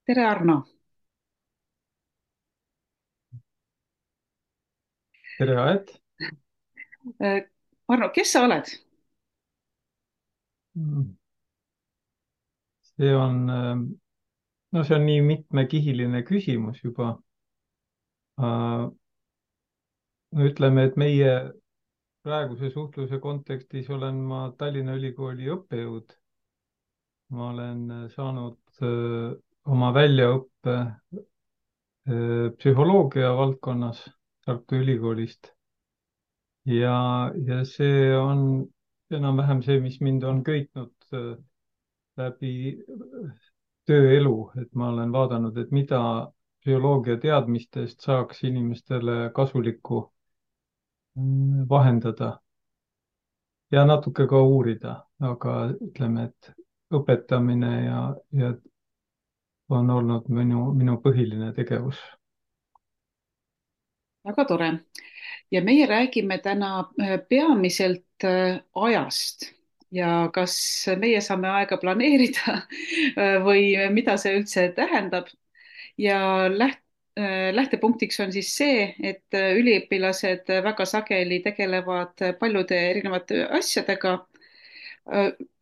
tere, Arno. tere, Aet. Arno, kes sa oled? See on, no see on nii mitmekihiline küsimus juba. Ütleme, et meie praeguse suhtluse kontekstis olen ma Tallinna Ülikooli õppejõud. Ma olen saanud oma väljaõppe psühholoogia valdkonnas Tartu Ülikoolist ja see on enam-vähem see, mis mind on köitnud läbi tööelu, et ma olen vaadanud, et mida bioloogia teadmistest saaks inimestele kasulikku vahendada ja natuke ka uurida, aga ütleme, et õpetamine ja on olnud minu põhiline tegevus. Väga tore. Ja meie räägime täna peamiselt ajast ja kas meie saame aega planeerida või mida see üldse tähendab. Ja lähtepunktiks on siis see, et üliõpilased väga sageli tegelevad paljude erinevate asjadega.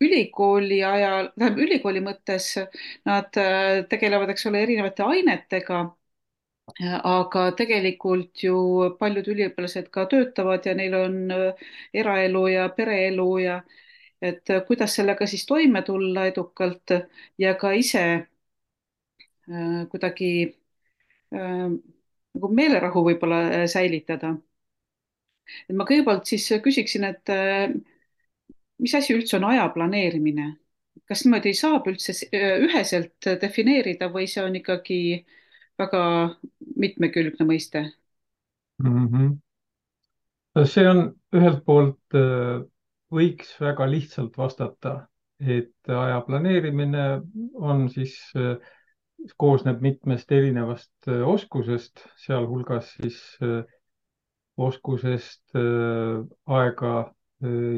Ülikooli ajal, tähendab ülikooli mõttes nad tegelevad, eks ole, erinevate ainetega, aga tegelikult ju paljud üliõpilased ka töötavad ja neil on eraelu ja pereelu ja et kuidas sellega siis toime tulla edukalt ja ka ise kuidagi nagu meelerahu võib-olla säilitada. Et ma kõigepealt siis küsiksin, et mis asi üldse on aja planeerimine? Kas niimoodi saab üldse üheselt defineerida või see on ikkagi väga mitmekülgne mõiste? Mhm. See on ühelt poolt, võiks väga lihtsalt vastata, et aja planeerimine on siis, koosneb mitmest erinevast oskusest, sealhulgas siis oskusest aega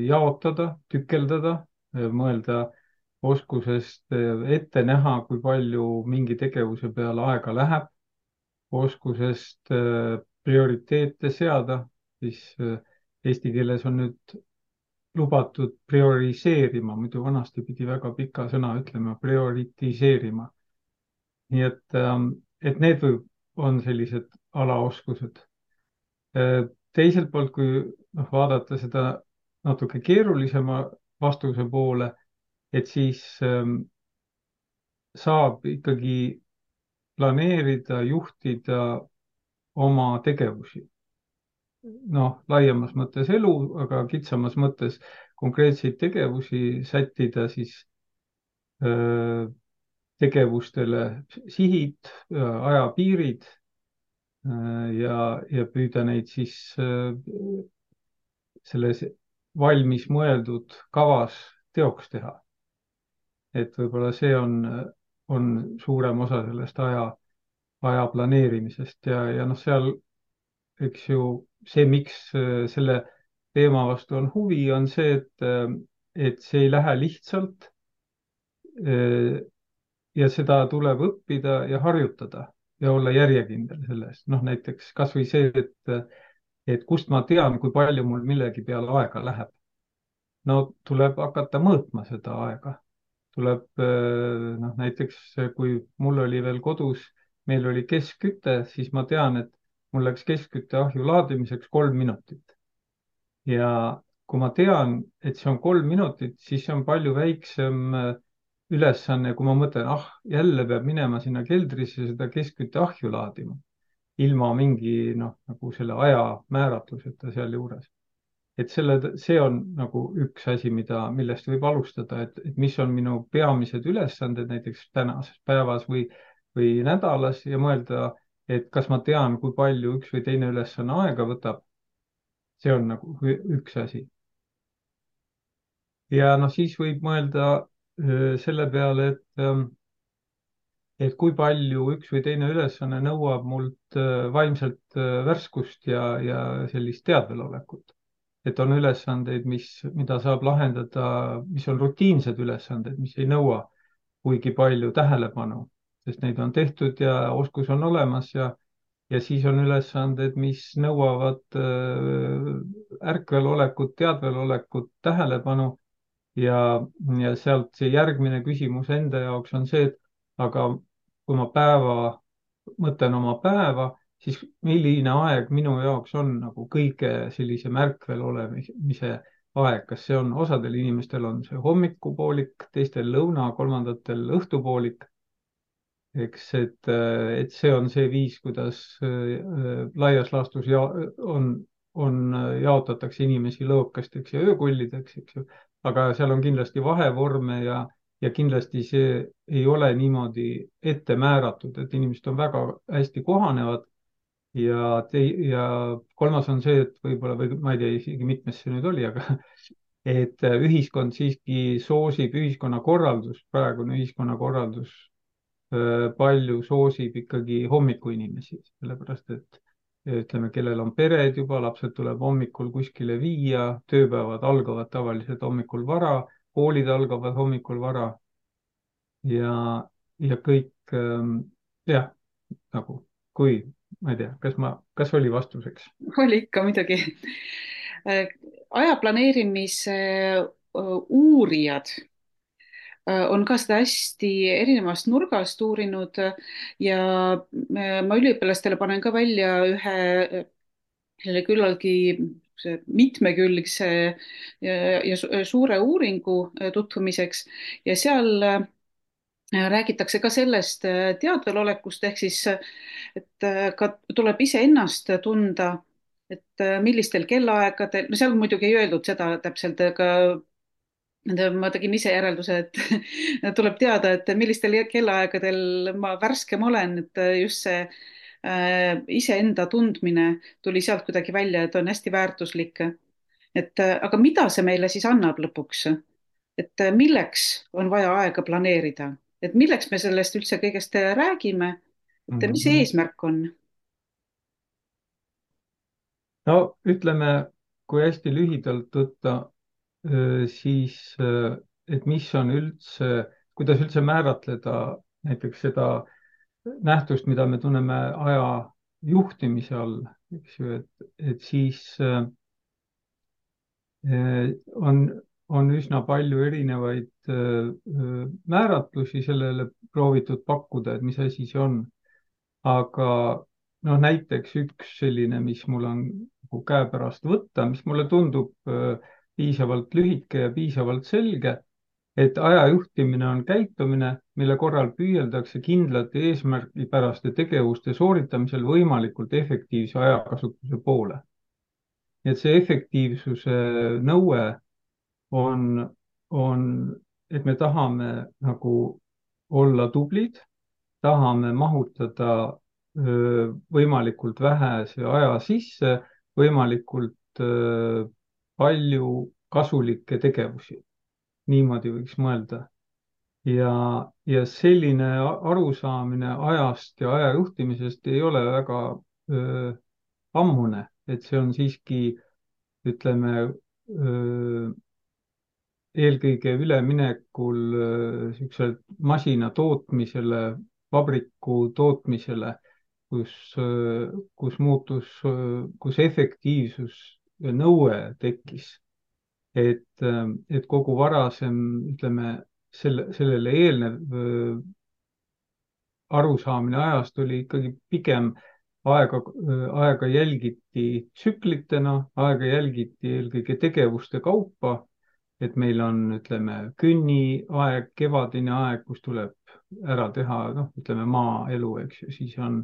jaotada, tükeldada, mõelda, oskusest ette näha, kui palju mingi tegevuse peale aega läheb, oskusest prioriteete seada, siis eesti keeles on nüüd lubatud prioriseerima, muidu vanasti pidi väga pika sõna ütlema, prioritiseerima. Nii et need on sellised alaoskused. Teiselt poolt, kui noh, vaadata seda natuke keerulisema vastuse poole, et siis saab ikkagi planeerida, juhtida oma tegevusi. Noh, laiemas mõttes elu, aga kitsamas mõttes konkreetseid tegevusi sättida siis öö, tegevustele sihid, ajapiirid ja püüda neid siis selles valmis mõeldud kavas teoks teha. Et võib-olla see on suurem osa sellest aja planeerimisest ja noh, seal eks ju see, miks selle teema vastu on huvi, on see, et see ei lähe lihtsalt ja seda tuleb õppida ja harjutada ja olla järjekindel selles. noh, näiteks kasvõi see, et kust ma tean, kui palju mul millegi peale aega läheb. No tuleb hakata mõõtma seda aega. Tuleb, noh, näiteks kui mul oli veel kodus, meil oli keskküte, siis ma tean, et mul läks keskkütteahju laadimiseks 3 minutit. Ja kui ma tean, et see on 3 minutit, siis see on palju väiksem ülesanne, kui ma mõtlen, ah, jälle peab minema sinna keldrisse seda keskkütteahju laadima, ilma mingi, noh, nagu selle aja määratluseta sealjuures. Et see on nagu üks asi, millest võib alustada, et mis on minu peamised ülesanded näiteks tänases päevas või nädalas ja mõelda, et kas ma tean, kui palju üks või teine ülesanne aega võtab. See on nagu üks asi. Ja noh, siis võib mõelda selle peale, et kui palju üks või teine ülesanne nõuab mult vaimselt värskust ja sellist teadvelolekut. Et on ülesandeid, mida saab lahendada, mis on rutiinsed ülesanded, mis ei nõua kuigi palju tähelepanu. sest neid on tehtud ja oskus on olemas ja siis on ülesanded, mis nõuavad ärkvelolekut, teadvelolekut, tähelepanu ja, ja sealt see järgmine küsimus enda jaoks on see, et aga kui ma mõtlen oma päeva, siis milline aeg minu jaoks on nagu kõige sellisem ärkvel olemise aeg, kas see on, osadel inimestel on see hommikupoolik, teistel lõuna, kolmandatel õhtupoolik, eks, et see on see viis, kuidas laias laastus jaotatakse inimesi lõokasteks ja öökullideks, eks ju. aga seal on kindlasti vahevorme ja kindlasti see ei ole niimoodi ette määratud, et inimesed on väga hästi kohanevad ja kolmas on see, et võib-olla, või ma ei tea isegi mitmes see nüüd oli, aga et ühiskond siiski soosib, ühiskonnakorraldus, praegune ühiskonnakorraldus palju soosib ikkagi hommikuinimesi, sellepärast et ütleme, kellel on pered juba, lapsed tuleb hommikul kuskile viia, tööpäevad algavad tavaliselt hommikul vara, koolid algavad hommikul vara ja, ja kõik jah, nagu kui, ma ei tea, kas oli vastuseks? oli ikka muidugi. Aja planeerimise uurijad on ka seda hästi erinevast nurgast uurinud ja ma üliõpilastele panen ka välja ühe selle küllaltki mitmekülgse ja suure uuringu tutvumiseks ja seal räägitakse ka sellest teadvelolekust ehk siis, et ka tuleb iseennast tunda, et millistel kellaaegadel, no seal muidugi ei öeldud seda täpselt, aga ma tegin ise järelduse, et tuleb teada, et millistel kellaaegadel ma värskem olen, et just see iseenda tundmine tuli sealt kuidagi välja, et on hästi väärtuslik. et aga mida see meile siis annab lõpuks? et milleks on vaja aega planeerida, et milleks me sellest üldse kõigest räägime, et mis see Mhm. eesmärk on? no ütleme, kui hästi lühidalt võtta, siis et mis on üldse, kuidas üldse määratleda näiteks seda nähtust, mida me tunneme aja juhtimise all, eks ju, et siis on, on üsna palju erinevaid määratlusi sellele proovitud pakkuda, et mis asi see on. aga noh, näiteks üks selline, mis mul on nagu käepärast võtta, mis mulle tundub piisavalt lühike ja piisavalt selge, et aja juhtimine on käitumine, mille korral püüeldakse kindlate eesmärgipäraste tegevuste sooritamisel võimalikult efektiivse ajakasutuse poole. nii et see efektiivsuse nõue on, on, et me tahame nagu olla tublid, tahame mahutada võimalikult vähese aja sisse võimalikult palju kasulikke tegevusi. niimoodi võiks mõelda. ja selline arusaamine ajast ja aja juhtimisest ei ole väga öö, ammune, et see on siiski, ütleme, eelkõige üleminekul niisugusele masina tootmisele, vabriku tootmisele, kus, kus efektiivsus ja nõue tekkis, et kogu varasem, ütleme, sellele eelnev arusaamine ajast oli ikkagi pigem aega jälgiti tsüklitena, aega jälgiti eelkõige tegevuste kaupa, et meil on, ütleme, künniaeg, kevadine aeg, kus tuleb ära teha, noh, ütleme maaelu, eks ju, siis on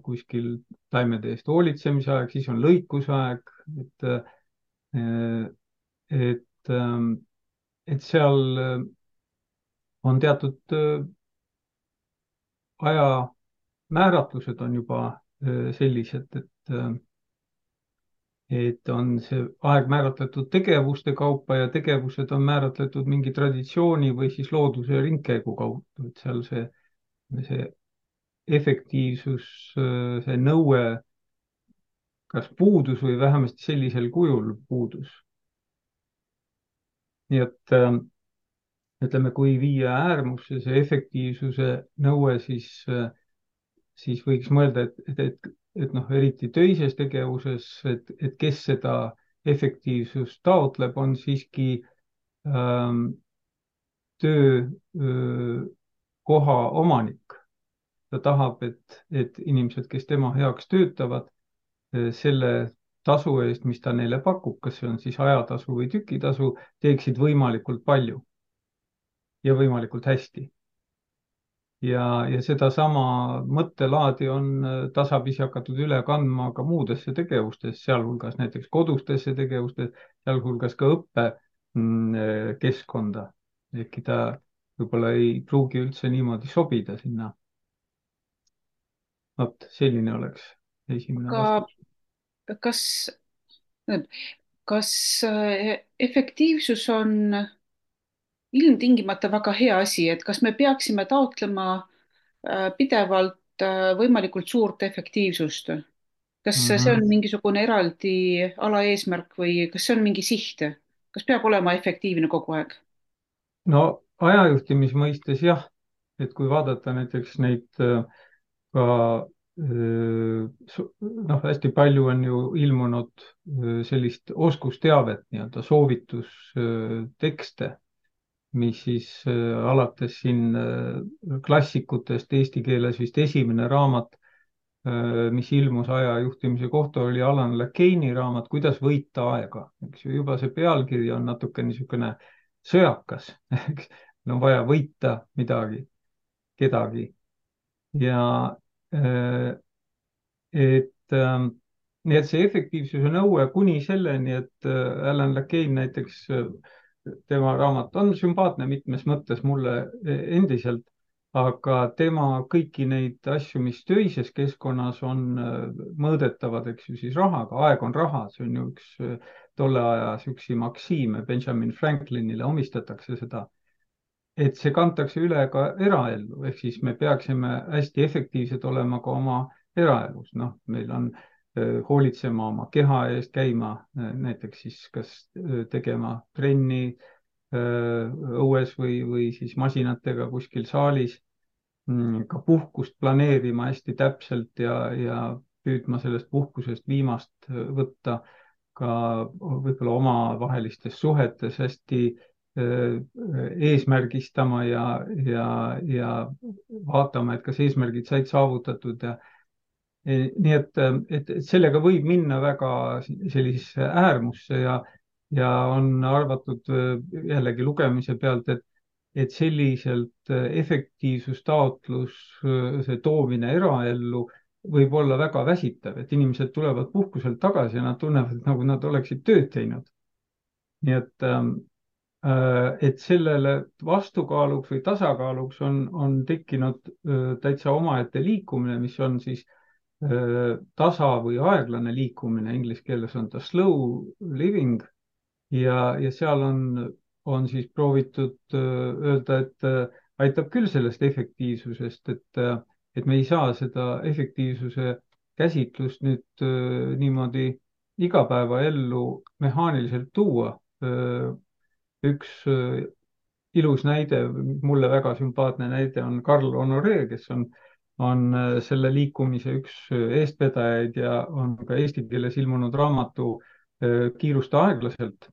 kuskil taimede eest hoolitsemise aeg, siis on lõikusaeg, et, et seal on teatud ajamääratlused on juba sellised, et on see aeg määratletud tegevuste kaupa ja tegevused on määratletud mingi traditsiooni või siis looduse ringkäigu kaudu, et seal see efektiivsus, see nõue kas puudus või vähemasti sellisel kujul puudus. nii et ütleme, kui viia äärmusse see efektiivsuse nõue, siis võiks mõelda, et noh, eriti töises tegevuses, et kes seda efektiivsust taotleb, on siiski ähm, töökoha omanik. Ta tahab, et inimesed, kes tema heaks töötavad, selle tasu eest, mis ta neile pakub, kas see on siis ajatasu või tükitasu, teeksid võimalikult palju ja võimalikult hästi. Ja sedasama mõttelaadi on tasapisi hakatud üle kandma ka muudesse tegevustesse, sealhulgas näiteks kodustesse tegevustesse, sealhulgas ka õppekeskkonda. ehkki ta võib-olla ei pruugi üldse niimoodi sobida sinna. vot selline oleks esimene aga vastus. kas, kas efektiivsus on ilmtingimata väga hea asi, et kas me peaksime taotlema pidevalt võimalikult suurt efektiivsust? Kas see Mhm. on mingisugune eraldi alaeesmärk või kas see on mingi siht? Kas peab olema efektiivne kogu aeg? no ajajuhtimise mõistes jah, et kui vaadata näiteks neid ka noh, hästi palju on ju ilmunud sellist oskusteavet, nii-öelda soovitustekste, mis siis alates siin klassikutest eesti keeles vist esimene raamat, mis ilmus ajajuhtimise kohta, oli Alan Lakeini raamat Kuidas võita aega, eks ju, juba see pealkiri on natuke niisugune sõjakas, eks, on vaja võita midagi, kedagi ja äh, nii et see efektiivsuse nõue kuni selleni, et Alan Lakein näiteks, tema raamat on sümpaatne mitmes mõttes mulle endiselt, aga tema kõiki neid asju, mis töises keskkonnas on mõõdetavad, eks ju, siis rahaga, aeg on raha, see on ju üks tolle aja siuksi maksiime, Benjamin Franklinile omistatakse seda, et see kantakse üle ka eraellu, ehk siis me peaksime hästi efektiivsed olema ka oma eraelus, noh, meil on hoolitsema oma keha eest, käima näiteks siis kas tegema trenni õues või siis masinatega kuskil saalis, ka puhkust planeerima hästi täpselt ja püüdma sellest puhkusest viimast võtta, ka võib-olla omavahelistes suhetes hästi eesmärgistama ja vaatama, et kas eesmärgid said saavutatud ja nii et sellega võib minna väga sellisesse äärmusse ja on arvatud jällegi lugemise pealt, et selliselt efektiivsustaotluse toomine eraellu võib olla väga väsitav, et inimesed tulevad puhkuselt tagasi ja nad tunnevad, nagu nad oleksid tööd teinud. nii et sellele vastukaaluks või tasakaaluks on tekkinud täitsa omaette liikumine, mis on siis tasa või aeglane liikumine, inglise keeles on ta slow living ja seal on siis proovitud öelda, et aitab küll sellest efektiivsusest, et me ei saa seda efektiivsuse käsitlust nüüd niimoodi igapäevaellu mehaaniliselt tuua. üks ilus näide, mulle väga sümpaatne näide on Carl Honoré, kes on selle liikumise üks eestvedajaid ja on ka eesti keeles ilmunud raamatu Kiirusta aeglaselt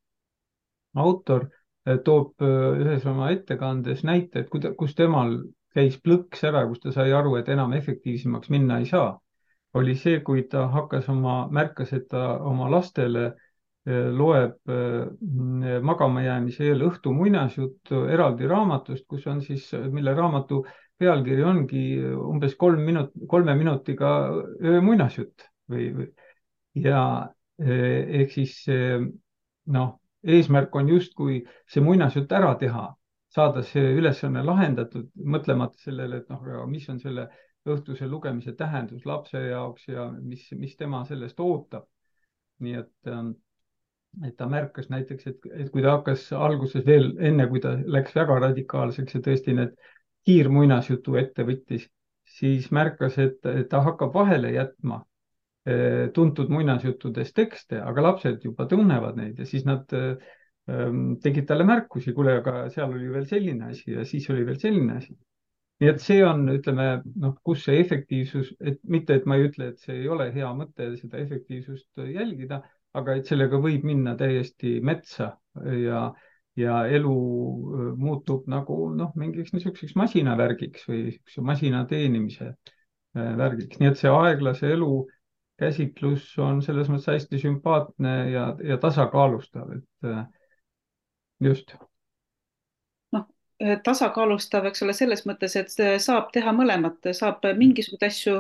autor, toob ühes oma ettekandes näite, et kus temal käis plõks ära, kus ta sai aru, et enam efektiivsemaks minna ei saa, oli see, kui ta märkas, et ta oma lastele loeb magama jäämise eel õhtu muinasjuttu eraldi raamatust, kus on siis, mille raamatu pealkiri ongi umbes 3 minutiga öömuinasjutt ja ehk siis noh, eesmärk on justkui see muinasjutt ära teha, saada see ülesanne lahendatud, mõtlemata sellele, et noh, mis on selle õhtuse lugemise tähendus lapse jaoks ja mis tema sellest ootab. nii et ta märkas näiteks, et kui ta hakkas alguses veel enne, kui ta läks väga radikaalseks ja tõesti need kiirmuinasjutu ette võttis, siis märkas, et ta hakkab vahele jätma tuntud muinasjuttudes tekste, aga lapsed juba tunnevad neid ja siis nad tegid talle märkusi, kuule, aga seal oli veel selline asi ja siis oli veel selline asi. nii et see on, ütleme, noh, kus see efektiivsus, et mitte, et ma ei ütle, et see ei ole hea mõte seda efektiivsust jälgida, aga et sellega võib minna täiesti metsa ja, ja elu muutub nagu noh, mingiks niisuguseks masinavärgiks või niisuguse masina teenimise värgiks, nii et see aeglase elu käsitlus on selles mõttes hästi sümpaatne ja tasakaalustav, et just. noh, tasakaalustav, eks ole, selles mõttes, et saab teha mõlemat, saab mingisuguseid asju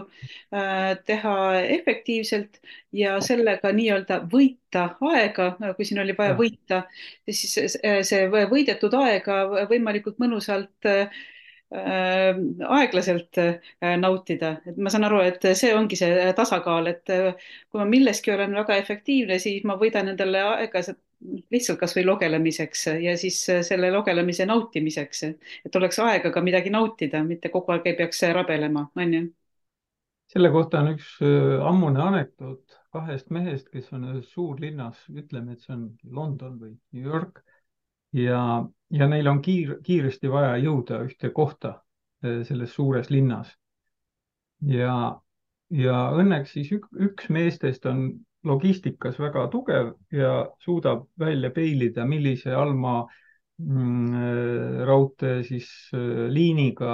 teha efektiivselt ja sellega nii-öelda võita aega, kui siin oli vaja jah, võita, siis see võidetud aega võimalikult mõnusalt aeglaselt nautida, et ma saan aru, et see ongi see tasakaal, et kui ma milleski olen väga efektiivne, siis ma võidan endale aeglaselt lihtsalt kasvõi logelemiseks ja siis selle logelemise nautimiseks, et oleks aega ka midagi nautida, mitte kogu aeg ei peaks rabelema, onju. selle kohta on üks ammune anekdoot kahest mehest, kes on ühes suurlinnas, ütleme, et see on London või New York ja, ja neil on kiiresti vaja jõuda ühte kohta selles suures linnas ja, ja õnneks siis üks meestest on logistikas väga tugev ja suudab välja peilida, millise allmaa raudtee siis liiniga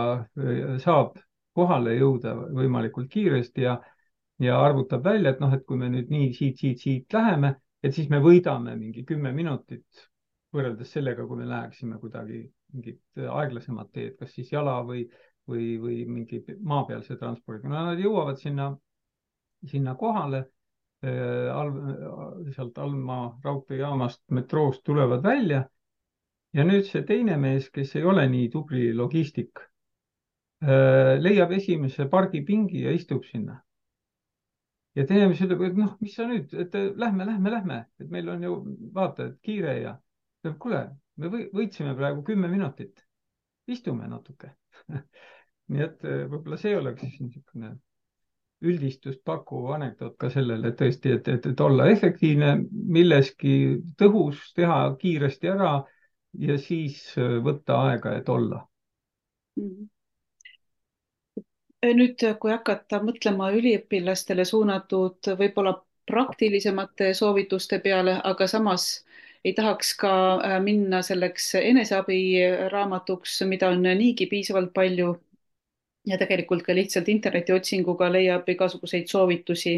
saab kohale jõuda võimalikult kiiresti ja arvutab välja, et noh, et kui me nüüd nii siit läheme, et siis me võidame mingi 10 minutit võrreldes sellega, kui me läheksime kuidagi mingit aeglasemat teed, kas siis jala või mingi maapealse transpordiga. no nad jõuavad sinna kohale, sealt Alma raudteejaamast, metroost tulevad välja ja nüüd see teine mees, kes ei ole nii tubli logistik, leiab esimese pargipingi ja istub sinna. ja teine mees ütleb, et noh, mis sa nüüd, et lähme, et meil on ju vaata, et kiire ja ütleb, kuule, me võitsime praegu 10 minutit, istume natuke nii et võib-olla see oleks siis niisugune üldistust pakkuv anekdoot ka sellele, et tõesti, et olla efektiivne milleski, tõhus, teha kiiresti ära ja siis võtta aega, et olla. Mhm. Nüüd, kui hakata mõtlema üliõpilastele suunatud võib-olla praktilisemate soovituste peale, aga samas ei tahaks ka minna selleks eneseabiraamatuks, mida on niigi piisavalt palju ja tegelikult ka lihtsalt internetiotsinguga leiab igasuguseid soovitusi.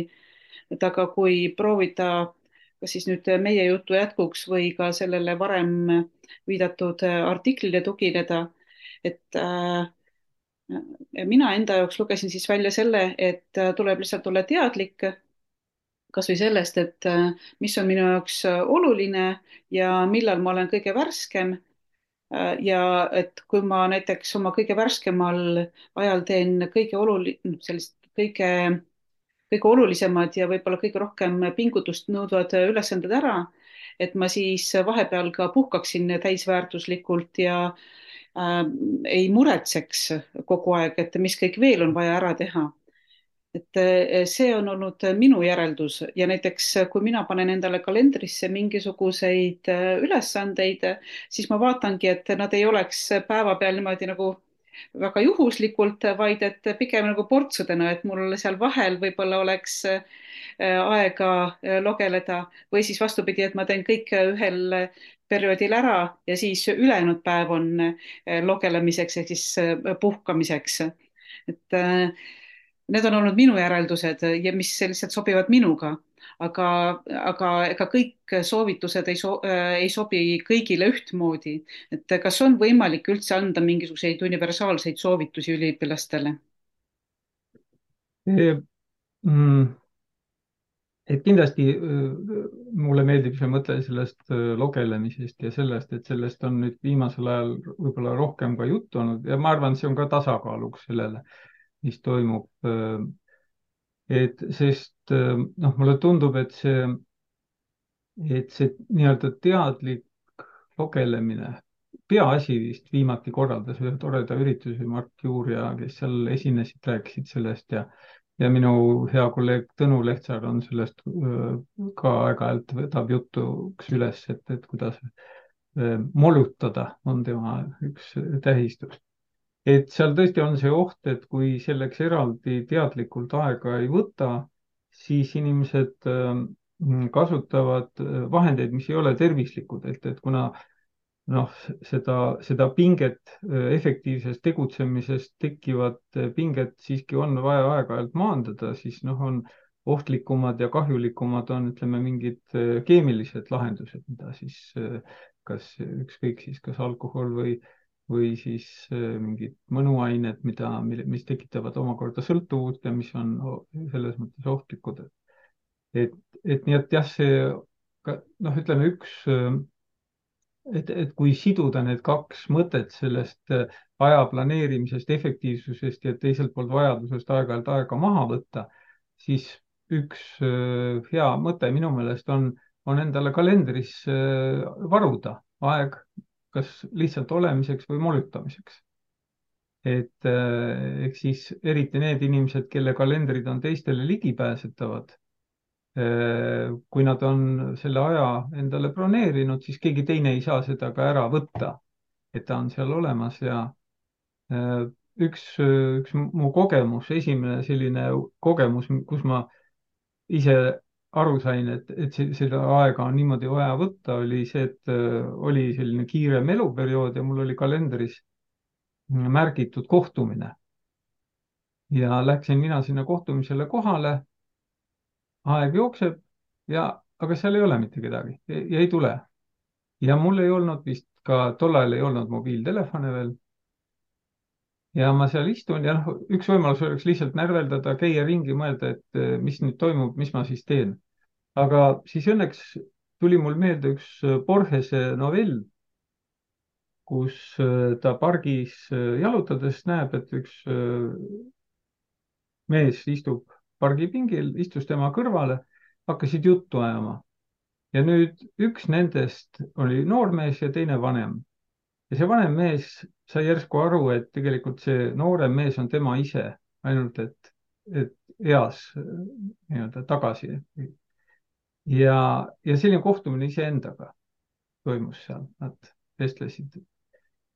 et aga kui proovida, kas siis nüüd meie jutu jätkuks või ka sellele varem viidatud artiklile tugineda, et mina enda jaoks lugesin siis välja selle, et tuleb lihtsalt olla teadlik kasvõi sellest, et mis on minu jaoks oluline ja millal ma olen kõige värskem. ja et kui ma näiteks oma kõige värskemal ajal teen sellist kõige olulisemad ja võib-olla kõige rohkem pingutust nõudvad ülesanded ära, et ma siis vahepeal ka puhkaksin täisväärtuslikult ja ei muretseks kogu aeg, et mis kõik veel on vaja ära teha. et see on olnud minu järeldus ja näiteks kui mina panen endale kalendrisse mingisuguseid ülesandeid, siis ma vaatangi, et nad ei oleks päevapeal niimoodi nagu väga juhuslikult, vaid et pigem nagu portsudena, et mul seal vahel võib-olla oleks aega logeleda või siis vastupidi, et ma teen kõik ühel perioodil ära ja siis ülejäänud päev on logelemiseks ehk siis puhkamiseks. et need on olnud minu järeldused ja mis lihtsalt sobivad minuga, aga, aga ega kõik soovitused ei sobi kõigile ühtmoodi. et kas on võimalik üldse anda mingisuguseid universaalseid soovitusi üliõpilastele? Mm, et kindlasti mulle meeldib see mõte sellest logelemisest ja sellest, et sellest on nüüd viimasel ajal võib-olla rohkem ka juttu olnud ja ma arvan, see on ka tasakaaluks sellele, mis toimub. et sest noh, mulle tundub, et see nii-öelda teadlik logelemine, peaasi vist viimati korraldas ühe toreda ürituse Mart Juur ja kes seal esinesid, rääkisid sellest ja minu hea kolleeg Tõnu Lehtsaar on sellest ka aeg-ajalt võtab jutuks üles, et kuidas molutada on tema üks tähistus. Et seal tõesti on see oht, et kui selleks eraldi teadlikult aega ei võta, siis inimesed kasutavad vahendeid, mis ei ole tervislikud, et kuna noh, seda pinget, efektiivsest tegutsemisest tekkivat pinget siiski on vaja aeg-ajalt maandada, siis noh, on ohtlikumad ja kahjulikumad on, ütleme, mingid keemilised lahendused, mida siis kas ükskõik siis kas alkohol või siis mingid mõnuained, mis tekitavad omakorda sõltuvust ja mis on selles mõttes ohtlikud. et, et nii, et jah, see noh, ütleme üks et kui siduda need kaks mõtet sellest aja planeerimisest, efektiivsusest ja teiselt poolt vajadusest aeg-ajalt aega maha võtta, siis üks hea mõte minu meelest on endale kalendris varuda aeg kas lihtsalt olemiseks või molutamiseks. Eks siis eriti need inimesed, kelle kalendrid on teistele ligipääsetavad, kui nad on selle aja endale broneerinud, siis keegi teine ei saa seda ka ära võtta, et ta on seal olemas ja äh, üks mu kogemus, esimene selline kogemus, kus ma ise aru sain, seda aega on niimoodi vaja võtta, oli see, et oli selline kiirem eluperiood ja mul oli kalendris märgitud kohtumine ja läksin mina sinna kohtumisele kohale, aeg jookseb ja, aga seal ei ole mitte kedagi ja ei tule. ja mul ei olnud vist ka, tol ajal ei olnud mobiiltelefone veel. ja ma seal istun ja noh, üks võimalus oleks lihtsalt närveldada, käia ringi, mõelda, et mis nüüd toimub, mis ma siis teen. aga siis õnneks tuli mul meelde üks Borgese novell, kus ta pargis jalutades näeb, et üks mees istub pargipingil, istus tema kõrvale, hakkasid juttu ajama. ja nüüd üks nendest oli noormees ja teine vanem. ja see vanem mees sai järsku aru, et tegelikult see noorem mees on tema ise, ainult et eas nii-öelda tagasi. ja selline kohtumine iseendaga toimus seal, nad vestlesid,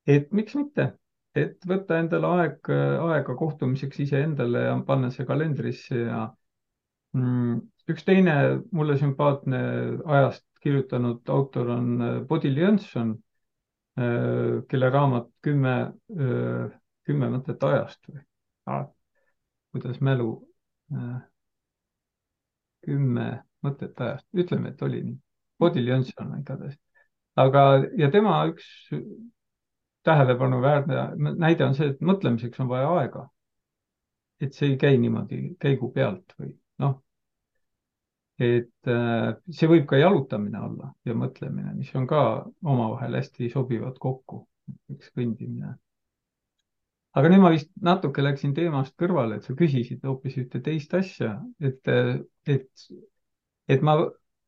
et miks mitte, et võtta endale aega kohtumiseks iseendale ja panna see kalendrisse ja üks teine mulle sümpaatne ajast kirjutanud autor on Bodil Jönson, kelle raamat kümme mõtet ajast või kuidas mälu, äh, 10 mõtet ajast, ütleme, et oli nii. Bodil Jönson igatahes. aga, ja tema üks tähelepanuväärne näide on see, et mõtlemiseks on vaja aega. et see ei käi niimoodi käigu pealt või noh, et see võib ka jalutamine olla ja mõtlemine, mis on ka omavahel hästi sobivad kokku, üks kõndimine. aga nüüd ma vist natuke läksin teemast kõrvale, et sa küsisid hoopis ühte teist asja, et, et ma,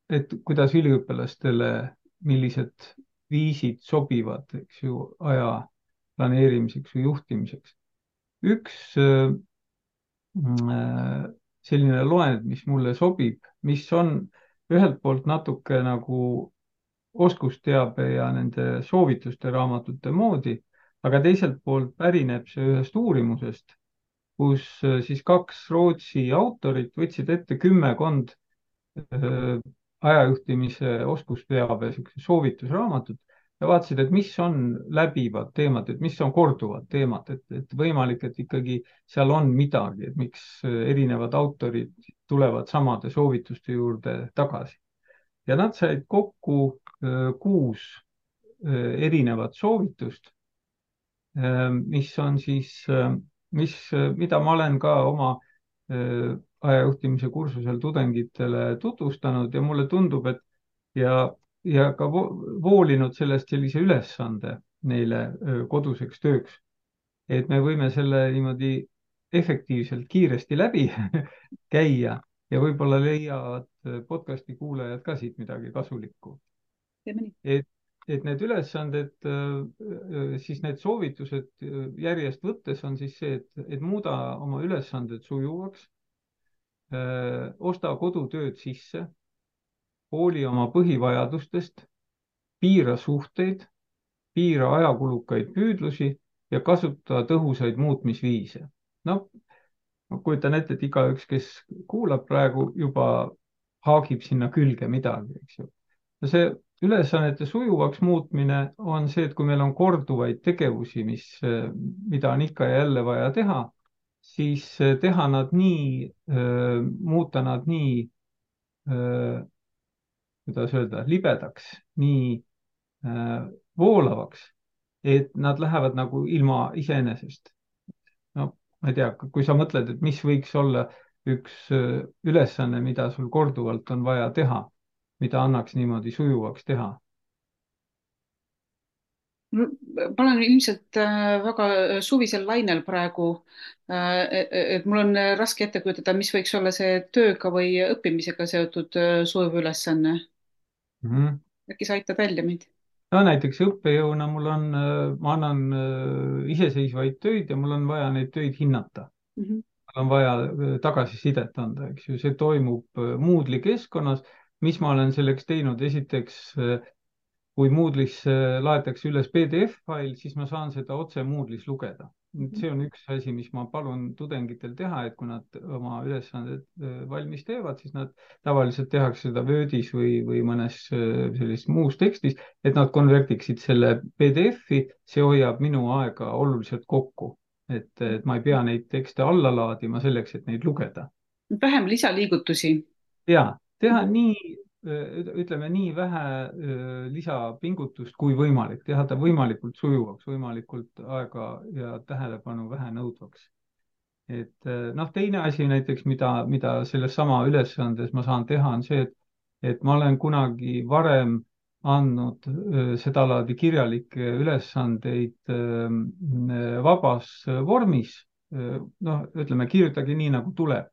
et kuidas üliõpilastele, millised viisid sobivad, eks ju, aja planeerimiseks või juhtimiseks. üks selline loend, mis mulle sobib, mis on ühelt poolt natuke nagu oskusteabe ja nende soovituste raamatute moodi, aga teiselt poolt pärineb see ühest uurimusest, kus siis kaks Rootsi autorit võtsid ette kümmekond ajajuhtimise oskusteabe soovitusraamatut ja vaatasid, et mis on läbivad teemad, et mis on korduvad teemad, et võimalik, et ikkagi seal on midagi, et miks erinevad autorid tulevad samade soovituste juurde tagasi. ja nad said kokku 6 erinevat soovitust, mis on siis, mida ma olen ka oma ajajuhtimise kursusel tudengitele tutvustanud ja mulle tundub, et ja ka voolinud sellest sellise ülesande neile koduseks tööks, et me võime selle niimoodi efektiivselt kiiresti läbi käia ja võib-olla leiavad podcasti kuulajad ka siit midagi kasulikku. teeme nii. et need ülesanded, siis need soovitused järjest võttes on siis see, et muuda oma ülesanded sujuvaks, osta kodutööd sisse, hooli oma põhivajadustest, piira suhteid, piira ajakulukaid püüdlusi ja kasuta tõhusaid muutmisviise. no ma kujutan ette, et igaüks, kes kuulab praegu, juba haagib sinna külge midagi, eks ju. ja see ülesannete sujuvaks muutmine on see, et kui meil on korduvaid tegevusi, mida on ikka ja jälle vaja teha, siis teha nad nii, muuta nad nii, kuidas öelda, libedaks, nii voolavaks, et nad lähevad nagu ilma iseenesest. No ma ei tea, kui sa mõtled, et mis võiks olla üks ülesanne, mida sul korduvalt on vaja teha, mida annaks niimoodi sujuvaks teha. ma olen ilmselt väga suvisel lainel praegu. Et mul on raske ette kujutada, mis võiks olla see tööga või õppimisega seotud sujuv ülesanne. Mhm. äkki sa aitad välja mind? no näiteks õppejõuna ma annan iseseisvaid töid ja mul on vaja neid töid hinnata. Mhm. Mul on vaja tagasisidet anda, eks ju, see toimub Moodle'i keskkonnas. mis ma olen selleks teinud, esiteks kui Moodle'isse laetakse üles PDF-fail, siis ma saan seda otse Moodle'is lugeda. see on üks asi, mis ma palun tudengitel teha, et kui nad oma ülesanded valmis teevad, siis nad tavaliselt tehakse seda Wordis või mõnes sellises muus tekstis, et nad konvertiksid selle PDF-i, see hoiab minu aega oluliselt kokku. et ma ei pea neid tekste alla laadima selleks, et neid lugeda. vähem lisaliigutusi. ja teha nii, ütleme nii vähe lisapingutust kui võimalik, teha ta võimalikult sujuvaks, võimalikult aega ja tähelepanu vähe nõudvaks. et noh, teine asi näiteks, mida selles sama ülesandes ma saan teha, on see, et ma olen kunagi varem andnud sedalaadi kirjalikke ülesandeid vabas vormis. noh, ütleme, kirjutage nii, nagu tuleb.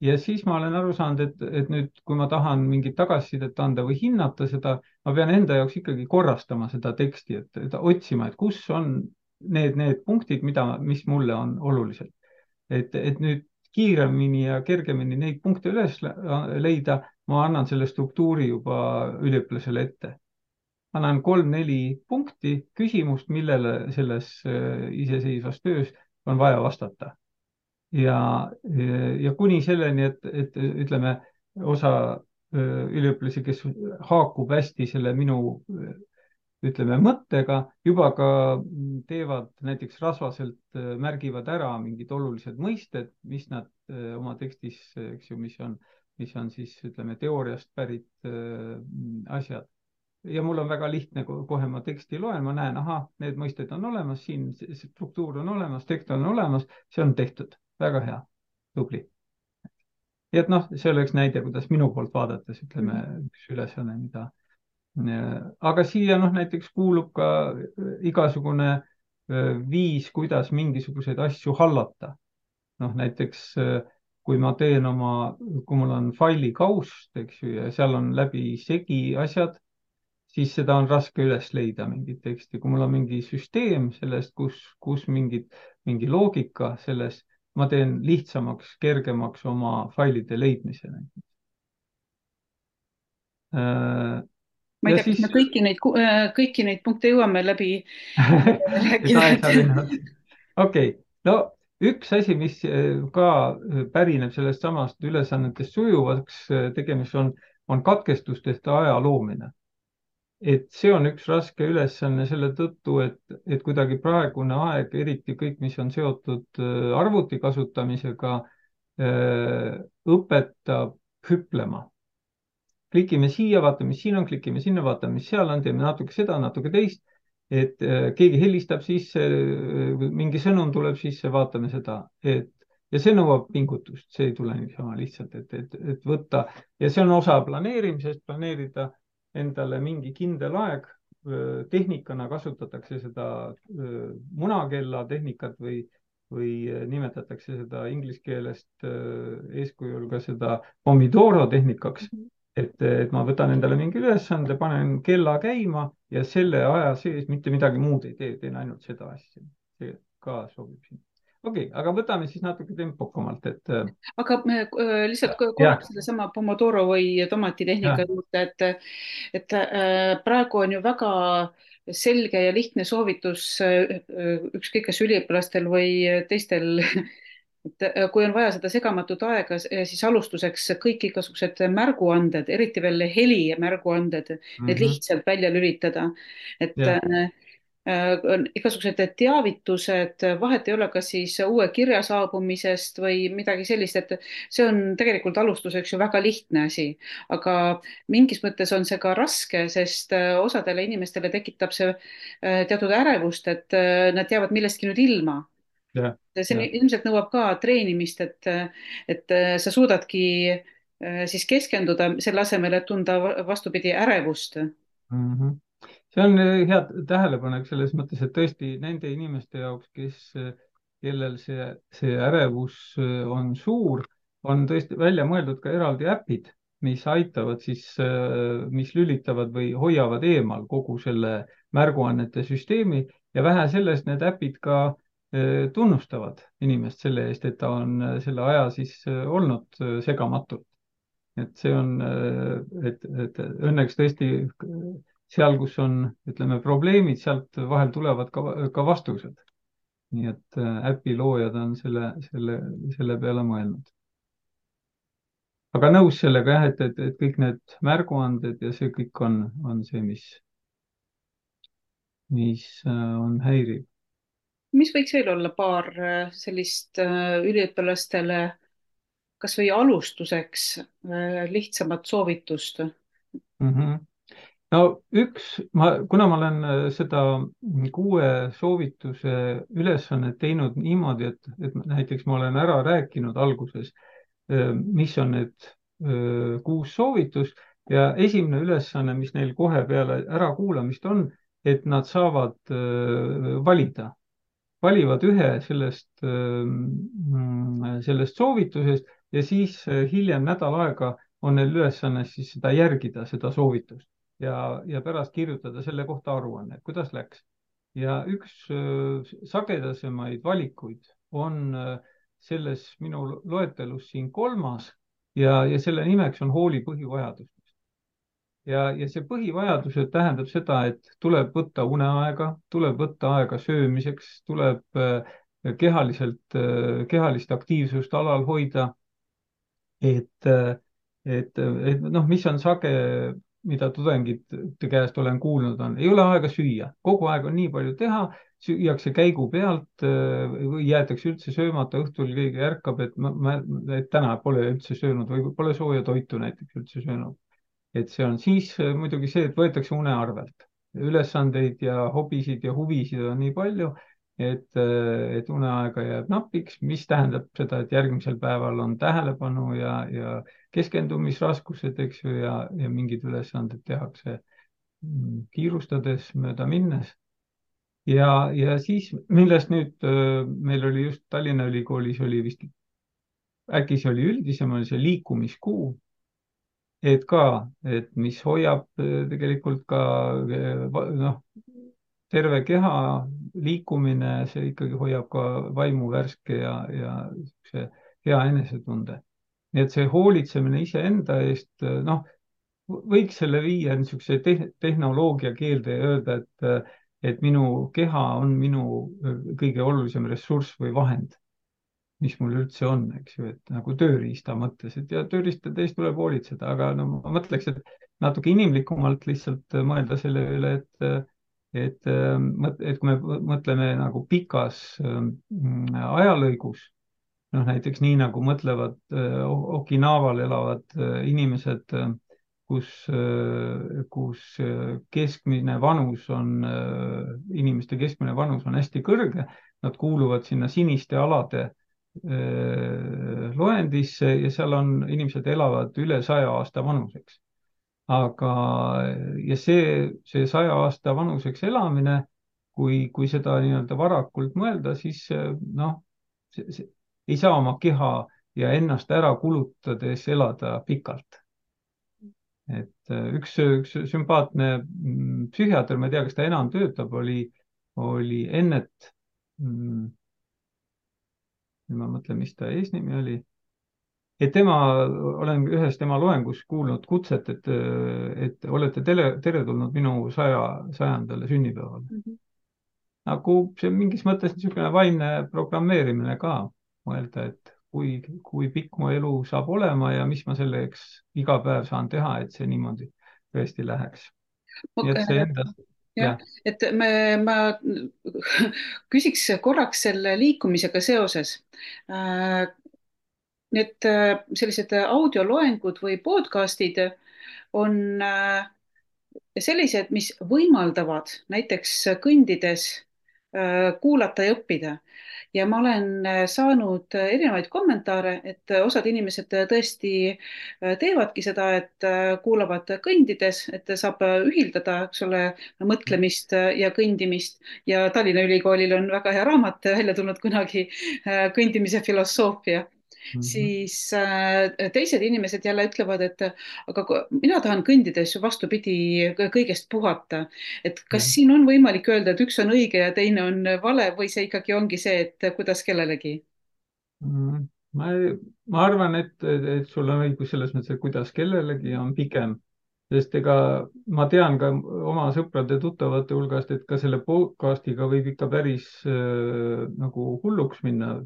ja siis ma olen aru saanud, et nüüd, kui ma tahan mingit tagasisidet anda või hinnata seda, ma pean enda jaoks ikkagi korrastama seda teksti, et otsima, et kus on need punktid, mis mulle on olulised. et nüüd kiiremini ja kergemini neid punkte üles leida, ma annan selle struktuuri juba üliõpilasele ette. annan 3-4 punkti, küsimust, millele selles iseseisvas töös on vaja vastata. ja kuni selleni, et ütleme, osa üliõpilasi, kes haakub hästi selle minu ütleme mõttega, juba ka teevad näiteks rasvaselt, märgivad ära mingid olulised mõisted, mis nad oma tekstis, eks ju, mis on siis ütleme teooriast pärit asjad. ja mul on väga lihtne, kohe ma teksti loen, ma näen, ahah, need mõisted on olemas, siin struktuur on olemas, tekst on olemas, see on tehtud, väga hea, tubli. nii et noh, see oleks näide, kuidas minu poolt vaadates, ütleme, üks ülesanne, mida. aga siia noh, näiteks kuulub ka igasugune viis, kuidas mingisuguseid asju hallata. noh, näiteks kui ma teen kui mul on faili kaust, eks ju, ja seal on läbisegi asjad, siis seda on raske üles leida, mingit teksti. kui mul on mingi süsteem sellest, kus mingi loogika selles, ma teen lihtsamaks, kergemaks oma failide leidmise. ma ei ja tea, kas siis me kõiki neid punkte jõuame läbi et rääkida. aeg saab enne otsa. okei, no üks asi, mis ka pärineb sellest samast ülesannetest sujuvaks tegemist on katkestustest aja loomine. et see on üks raske ülesanne selle tõttu, et kuidagi praegune aeg, eriti kõik, mis on seotud arvuti kasutamisega, õpetab hüplema. klikime siia, vaatame, mis siin on, klikime sinna, vaatame, mis seal on, teeme natuke seda, natuke teist. et keegi helistab sisse, mingi sõnum tuleb sisse, vaatame seda, ja see nõuab pingutust, see ei tule niisama lihtsalt, et võtta ja see on osa planeerimisest, planeerida endale mingi kindel aeg. tehnikana kasutatakse seda munakella tehnikat või nimetatakse seda inglise keelest eeskujul ka seda Pomodoro tehnikaks. et ma võtan endale mingi ülesande, panen kella käima ja selle aja sees mitte midagi muud ei tee, teen ainult seda asja. see ka sobib siin. okei, aga võtame siis natuke tempokamalt, et aga lihtsalt jah, korraks sellesama Pomodoro või tomatitehnika jah, juurde, et praegu on ju väga selge ja lihtne soovitus ükskõik kas üliõpilastel või teistel, et kui on vaja seda segamatut aega, siis alustuseks kõik igasugused märguanded, eriti veel helimärguanded, need mhm, lihtsalt välja lülitada. et jah, on igasugused teavitused, vahet ei ole, kas siis uue kirja saabumisest või midagi sellist, et see on tegelikult alustuseks ju väga lihtne asi, aga mingis mõttes on see ka raske, sest osadele inimestele tekitab see teatud ärevust, et nad jäävad millestki nüüd ilma. jah, See jah. ilmselt nõuab ka treenimist, et sa suudadki siis keskenduda selle asemel, et tunda vastupidi ärevust. Mhm. See on hea tähelepanek selles mõttes, et tõesti nende inimeste jaoks, kellel see ärevus on suur, on tõesti välja mõeldud ka eraldi äpid, mis aitavad siis, mis lülitavad või hoiavad eemal kogu selle märguannete süsteemi ja vähe sellest, need äpid ka tunnustavad inimest selle eest, et ta on selle aja siis olnud segamatult. Et see on, et õnneks tõesti seal, kus on, ütleme, probleemid, sealt vahel tulevad ka vastused. nii et äpi loojad on selle peale mõelnud. aga nõus sellega jah, et kõik need märguanded ja see kõik on see, mis on häiriv. mis võiks veel olla paar sellist üliõpilastele kas või alustuseks lihtsamat soovitust? Mm -hmm. no kuna ma olen seda 6 soovituse ülesannet teinud niimoodi, et näiteks ma olen ära rääkinud alguses, mis on need 6 soovitust ja esimene ülesanne, mis neil kohe peale ärakuulamist on, et nad saavad valida, valivad ühe sellest soovitusest ja siis hiljem nädal aega on neil ülesanne siis seda järgida, seda soovitust ja pärast kirjutada selle kohta aruanne, kuidas läks. ja üks sagedasemaid valikuid on selles minu loetelus siin kolmas ja selle nimeks on hooli põhivajadus ja see põhivajadused tähendab seda, et tuleb võtta uneaega, tuleb võtta aega söömiseks, tuleb kehalist aktiivsust alal hoida, et, et noh, mis on sage, mida tudengite käest olen kuulnud, ei ole aega süüa, kogu aeg on nii palju teha, süüakse käigu pealt või jäetakse üldse söömata, õhtul keegi ärkab, et täna pole üldse söönud või pole sooja toitu näiteks üldse söönud. et see on siis muidugi see, et võetakse une arvelt. ülesandeid ja hobisid ja huvisid on nii palju, et uneaega jääb napiks, mis tähendab seda, et järgmisel päeval on tähelepanu ja keskendumisraskused, eks ju, ja mingid ülesanded tehakse kiirustades, mööda minnes. ja siis, millest nüüd meil oli just Tallinna Ülikoolis oli vist, äkki see oli üldisem, oli see liikumiskuu et ka, et mis hoiab tegelikult ka noh, terve keha liikumine, see ikkagi hoiab ka vaimu värske ja see hea enesetunde. nii et see hoolitsemine iseenda eest, noh, võiks selle viia niisuguse tehnoloogia keelde ja öelda, et minu keha on minu kõige olulisem ressurss või vahend mis mul üldse on, eks ju, et nagu tööriista mõttes, et ja tööriistade eest tuleb hoolitseda, aga no ma mõtleks, et natuke inimlikumalt lihtsalt mõelda selle üle, et kui me mõtleme nagu pikas ajalõigus, noh näiteks nii nagu mõtlevad Okinaval elavad inimesed, kus keskmine vanus on, inimeste keskmine vanus on hästi kõrge, nad kuuluvad sinna siniste alade loendisse ja seal on, inimesed elavad üle 100 aasta vanuseks. aga, ja see 100 aasta vanuseks elamine, kui seda nii-öelda varakult mõelda, siis noh, ei saa oma keha ja ennast ära kulutades elada pikalt. et üks sümpaatne psühhiaater, ma ei tea, kas ta enam töötab, oli Ennet nüüd ma mõtlen, mis ta eesnimi oli. Et tema, olen ühes tema loengus kuulnud kutset, et olete teretulnud minu 100. sünnipäevale. Mhm. nagu see mingis mõttes niisugune vaimne programmeerimine ka, mõelda, et kui pikk mu elu saab olema ja mis ma selleks iga päev saan teha, et see niimoodi tõesti läheks. nii et see enda, jah, jah, et ma küsiks korraks selle liikumisega seoses. Need sellised audioloengud või podcast'id on sellised, mis võimaldavad näiteks kõndides kuulata ja õppida. Ja ma olen saanud erinevaid kommentaare, et osad inimesed tõesti teevadki seda, et kuulavad kõndides, et saab ühildada, eks ole, mõtlemist ja kõndimist. Ja Tallinna Ülikoolil on väga hea raamat välja tulnud kunagi, kõndimise filosoofia. mhm, Siis teised inimesed jälle ütlevad, et aga mina tahan kõndides ju vastupidi kõigest puhata. Et kas jah. siin on võimalik öelda, et üks on õige ja teine on vale või see ikkagi ongi see, et kuidas kellelegi? Mm, ma, ma arvan, et sul on õigus selles mõttes, et kuidas kellelegi on pigem, sest ega ma tean ka oma sõprade-tuttavate hulgast, et ka selle podcast'iga võib ikka päris nagu hulluks minna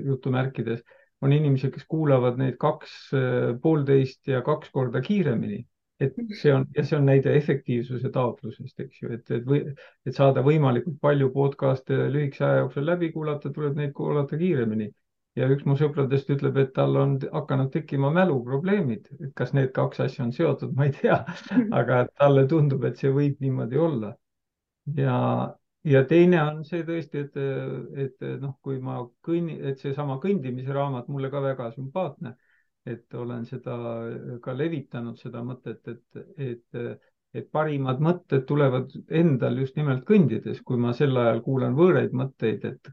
jutumärkides. on inimesed, kes kuulavad neid 2,5 ja 2 korda kiiremini. et see on, ja see on näide efektiivsuse taotlusest, eks ju, et saada võimalikult palju podcast'e lühikese aja jooksul läbi kuulata, tuleb neid kuulata kiiremini ja üks mu sõpradest ütleb, et tal on hakanud tekkima mäluprobleemid, et kas need kaks asja on seotud, ma ei tea, aga talle tundub, et see võib niimoodi olla. ja teine on see tõesti, et noh, kui ma et seesama kõndimise raamat mulle ka väga sümpaatne, et olen seda ka levitanud, seda mõtet, et parimad mõtted tulevad endal just nimelt kõndides, kui ma sel ajal kuulan võõraid mõtteid, et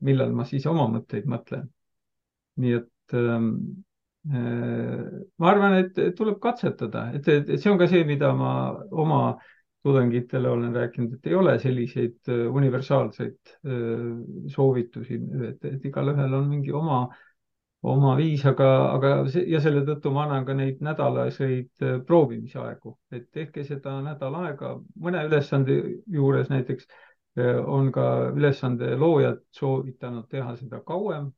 millal ma siis oma mõtteid mõtlen. nii et ma arvan, et tuleb katsetada, et see on ka see, mida ma oma tudengitele olen rääkinud, et ei ole selliseid universaalseid soovitusi, et igalühel on mingi oma viis, ja selle tõttu ma annan ka neid nädalaseid proovimisaegu, et tehke seda nädal aega, mõne ülesande juures näiteks on ka ülesande loojad soovitanud teha seda kauem.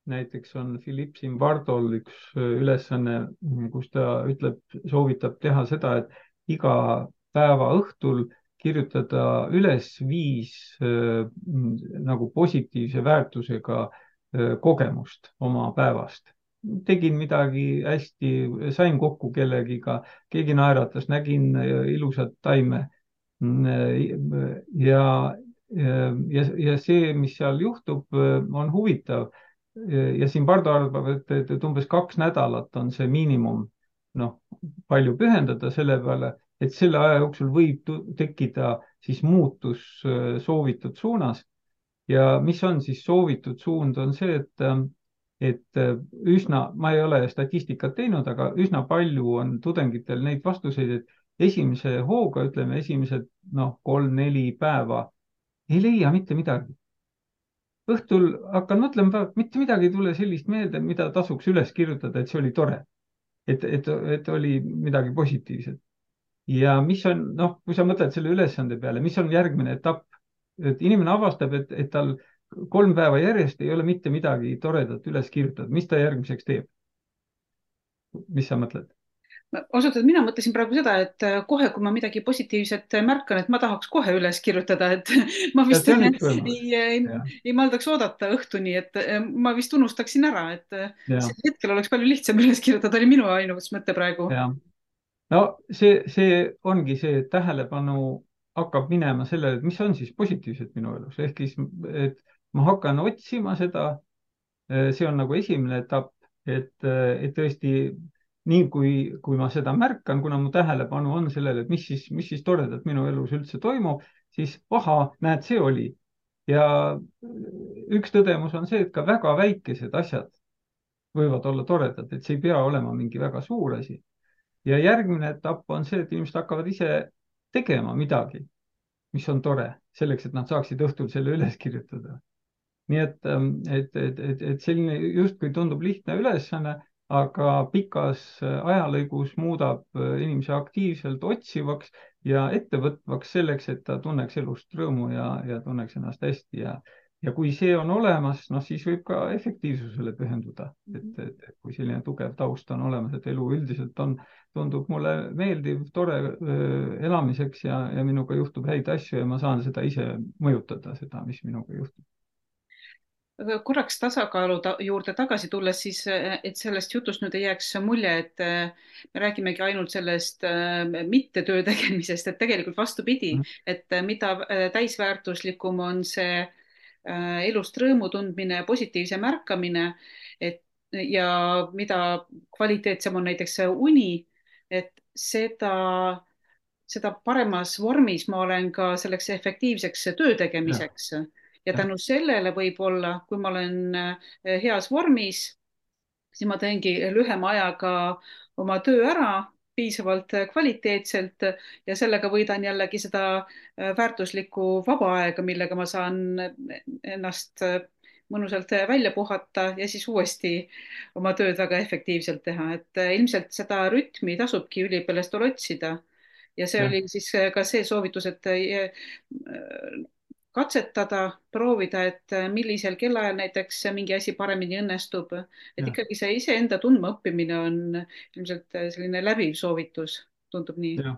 näiteks on Philippe Zimbardol üks ülesanne, kus ta soovitab teha seda, et iga päeva õhtul kirjutada üles 5 nagu positiivse väärtusega kogemust oma päevast. tegin midagi hästi, sain kokku kellegiga, keegi naeratas, nägin ilusat taime. ja, ja see, mis seal juhtub, on huvitav ja siin Pardo arvab, et umbes 2 nädalat on see miinimum, noh, palju pühendada selle peale, et selle aja jooksul võib tekkida siis muutus soovitud suunas. ja mis on siis soovitud suund, on see, et üsna, ma ei ole statistikat teinud, aga üsna palju on tudengitel neid vastuseid, et esimese hooga, ütleme, esimesed 3-4 päeva ei leia mitte midagi. Õhtul hakkan mõtlema, mitte midagi ei tule sellist meelde, mida tasuks üles kirjutada, et see oli tore, et oli midagi positiivset. ja mis on, noh, kui sa mõtled selle ülesande peale, mis on järgmine etapp, et inimene avastab, et tal 3 päeva järjest ei ole mitte midagi toredat üles kirjutatud, mis ta järgmiseks teeb? mis sa mõtled? ausalt öeldes mina mõtlesin praegu seda, et kohe, kui ma midagi positiivset märkan, et ma tahaks kohe üles kirjutada, et ma ja vist see on üks võimalus. ei maldaks oodata õhtuni, et ma vist unustaksin ära, et ja, sel hetkel oleks palju lihtsam üles kirjutada, oli minu ainus mõte praegu. ja no see ongi see, et tähelepanu hakkab minema sellele, et mis on siis positiivset minu elus, ehk siis, et ma hakkan otsima seda. see on nagu esimene etapp, et tõesti nii kui ma seda märkan, kuna mu tähelepanu on sellele, et mis siis toredat minu elus üldse toimub, siis ahaa, näed, see oli. ja üks tõdemus on see, et ka väga väikesed asjad võivad olla toredad, et see ei pea olema mingi väga suur asi. ja järgmine etapp on see, et inimesed hakkavad ise tegema midagi, mis on tore, selleks, et nad saaksid õhtul selle üles kirjutada. nii et selline justkui tundub lihtne ülesanne, aga pikas ajalõigus muudab inimese aktiivselt otsivaks ja ettevõtvaks selleks, et ta tunneks elust rõõmu ja tunneks ennast hästi ja kui see on olemas, noh, siis võib ka efektiivsusele pühenduda, et kui selline tugev taust on olemas, et elu üldiselt tundub mulle meeldiv, tore elamiseks ja minuga juhtub häid asju ja ma saan seda ise mõjutada, seda, mis minuga juhtub. Aga korraks tasakaalu juurde tagasi tulles, siis et sellest jutust nüüd ei jääks mulje, et me räägimegi ainult sellest mitte töö tegemisest, et tegelikult vastupidi, et mida täisväärtuslikum on see elust rõõmu tundmine, positiivse märkamine, et ja mida kvaliteetsem on näiteks see uni, et seda paremas vormis ma olen ka selleks efektiivseks töö ja, tegemiseks. Ja ja, tänu sellele võib-olla, kui ma olen heas vormis, siis ma teengi lühema ajaga oma töö ära, piisavalt kvaliteetselt ja sellega võidan jällegi seda väärtuslikku vaba aega, millega ma saan ennast mõnusalt välja puhata ja siis uuesti oma tööd väga efektiivselt teha, et ilmselt seda rütmi tasubki üliõpilastel otsida. Ja see ja, oli siis ka see soovitus, et katsetada, proovida, et millisel kellaajal näiteks mingi asi paremini õnnestub. Et ja, ikkagi see iseenda tundmaõppimine on ilmselt selline läbiv soovitus, tundub nii. ja.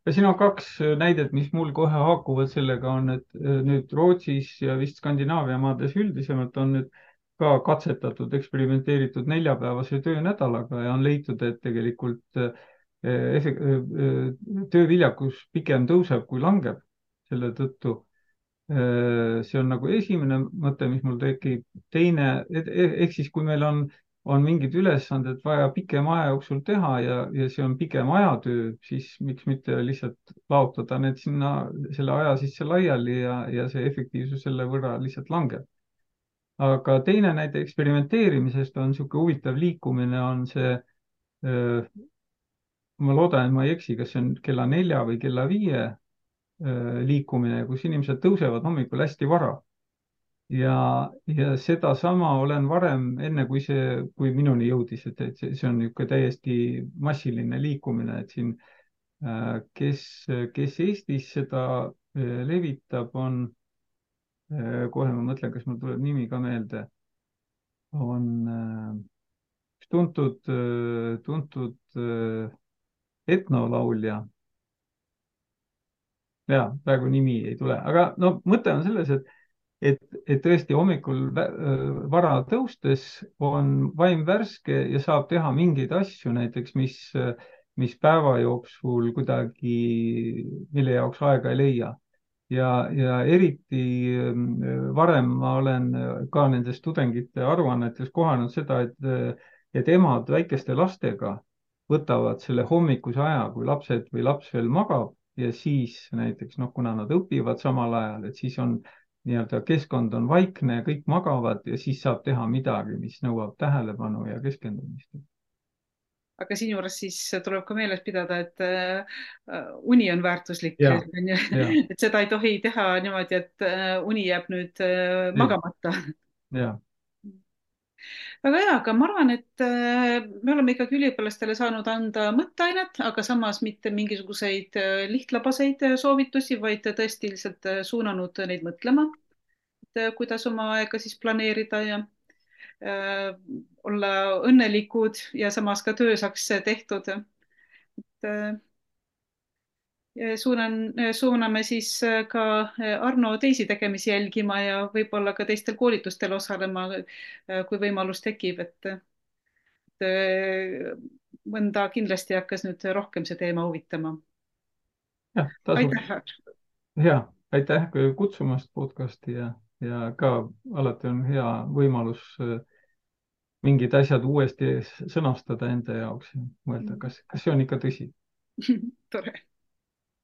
ja siin on kaks näidet, mis mul kohe haakuvad sellega, on, et nüüd Rootsis ja vist Skandinaavia maades üldisemalt on nüüd ka katsetatud, eksperimenteeritud neljapäevase töönädalaga ja on leitud, et tegelikult tööviljakus pigem tõuseb kui langeb selle tõttu. See on nagu esimene mõte, mis mul tekib. teine, ehk siis kui meil on mingid ülesanded vaja pikema aja jooksul teha ja see on pigem ajatöö, siis miks mitte lihtsalt laotada need sinna selle aja sisse laiali ja see efektiivsus selle võrra lihtsalt langeb. aga teine näide eksperimenteerimisest on niisugune huvitav liikumine, on see, ma loodan, et ma ei eksi, kas see on kella 4 või kella 5 liikumine, kus inimesed tõusevad hommikul hästi vara ja sedasama olen varem, enne kui minuni jõudis, et see on niisugune täiesti massiline liikumine, et siin kes, kes Eestis seda levitab, on, kohe ma mõtlen, kas mul tuleb nimi ka meelde, on üks tuntud etnolaulja. ja praegu nimi ei tule, aga no mõte on selles, et tõesti hommikul vara tõustes on vaim värske ja saab teha mingeid asju näiteks, mis päeva jooksul kuidagi, mille jaoks aega ei leia. ja eriti varem ma olen ka nendes tudengite aruannetes kohanud seda, et emad väikeste lastega võtavad selle hommikuse aja, kui lapsed või laps veel magab ja siis näiteks noh, kuna nad õpivad samal ajal, et siis on nii-öelda keskkond on vaikne, kõik magavad ja siis saab teha midagi, mis nõuab tähelepanu ja keskendumist. Aga siinjuures siis tuleb ka meeles pidada, et uni on väärtuslik, ja, ja, et seda ei tohi teha niimoodi, et uni jääb nüüd ei, magamata. ja, väga hea, aga ma arvan, et me oleme ikkagi üliõpilastele saanud anda mõtteainet, aga samas mitte mingisuguseid lihtlabaseid soovitusi, vaid tõesti lihtsalt suunanud neid mõtlema, et kuidas oma aega siis planeerida ja olla õnnelikud ja samas ka töö saaks tehtud. et suuname siis ka Arno teisi tegemisi jälgima ja võib-olla ka teistel koolitustel osalema, kui võimalus tekib, et mõnda kindlasti hakkas nüüd rohkem see teema huvitama. jah, tasub. Aitäh! hea, aitäh kutsumast podcasti ja ka alati on hea võimalus mingid asjad uuesti sõnastada enda jaoks ja mõelda, kas see on ikka tõsi. tore!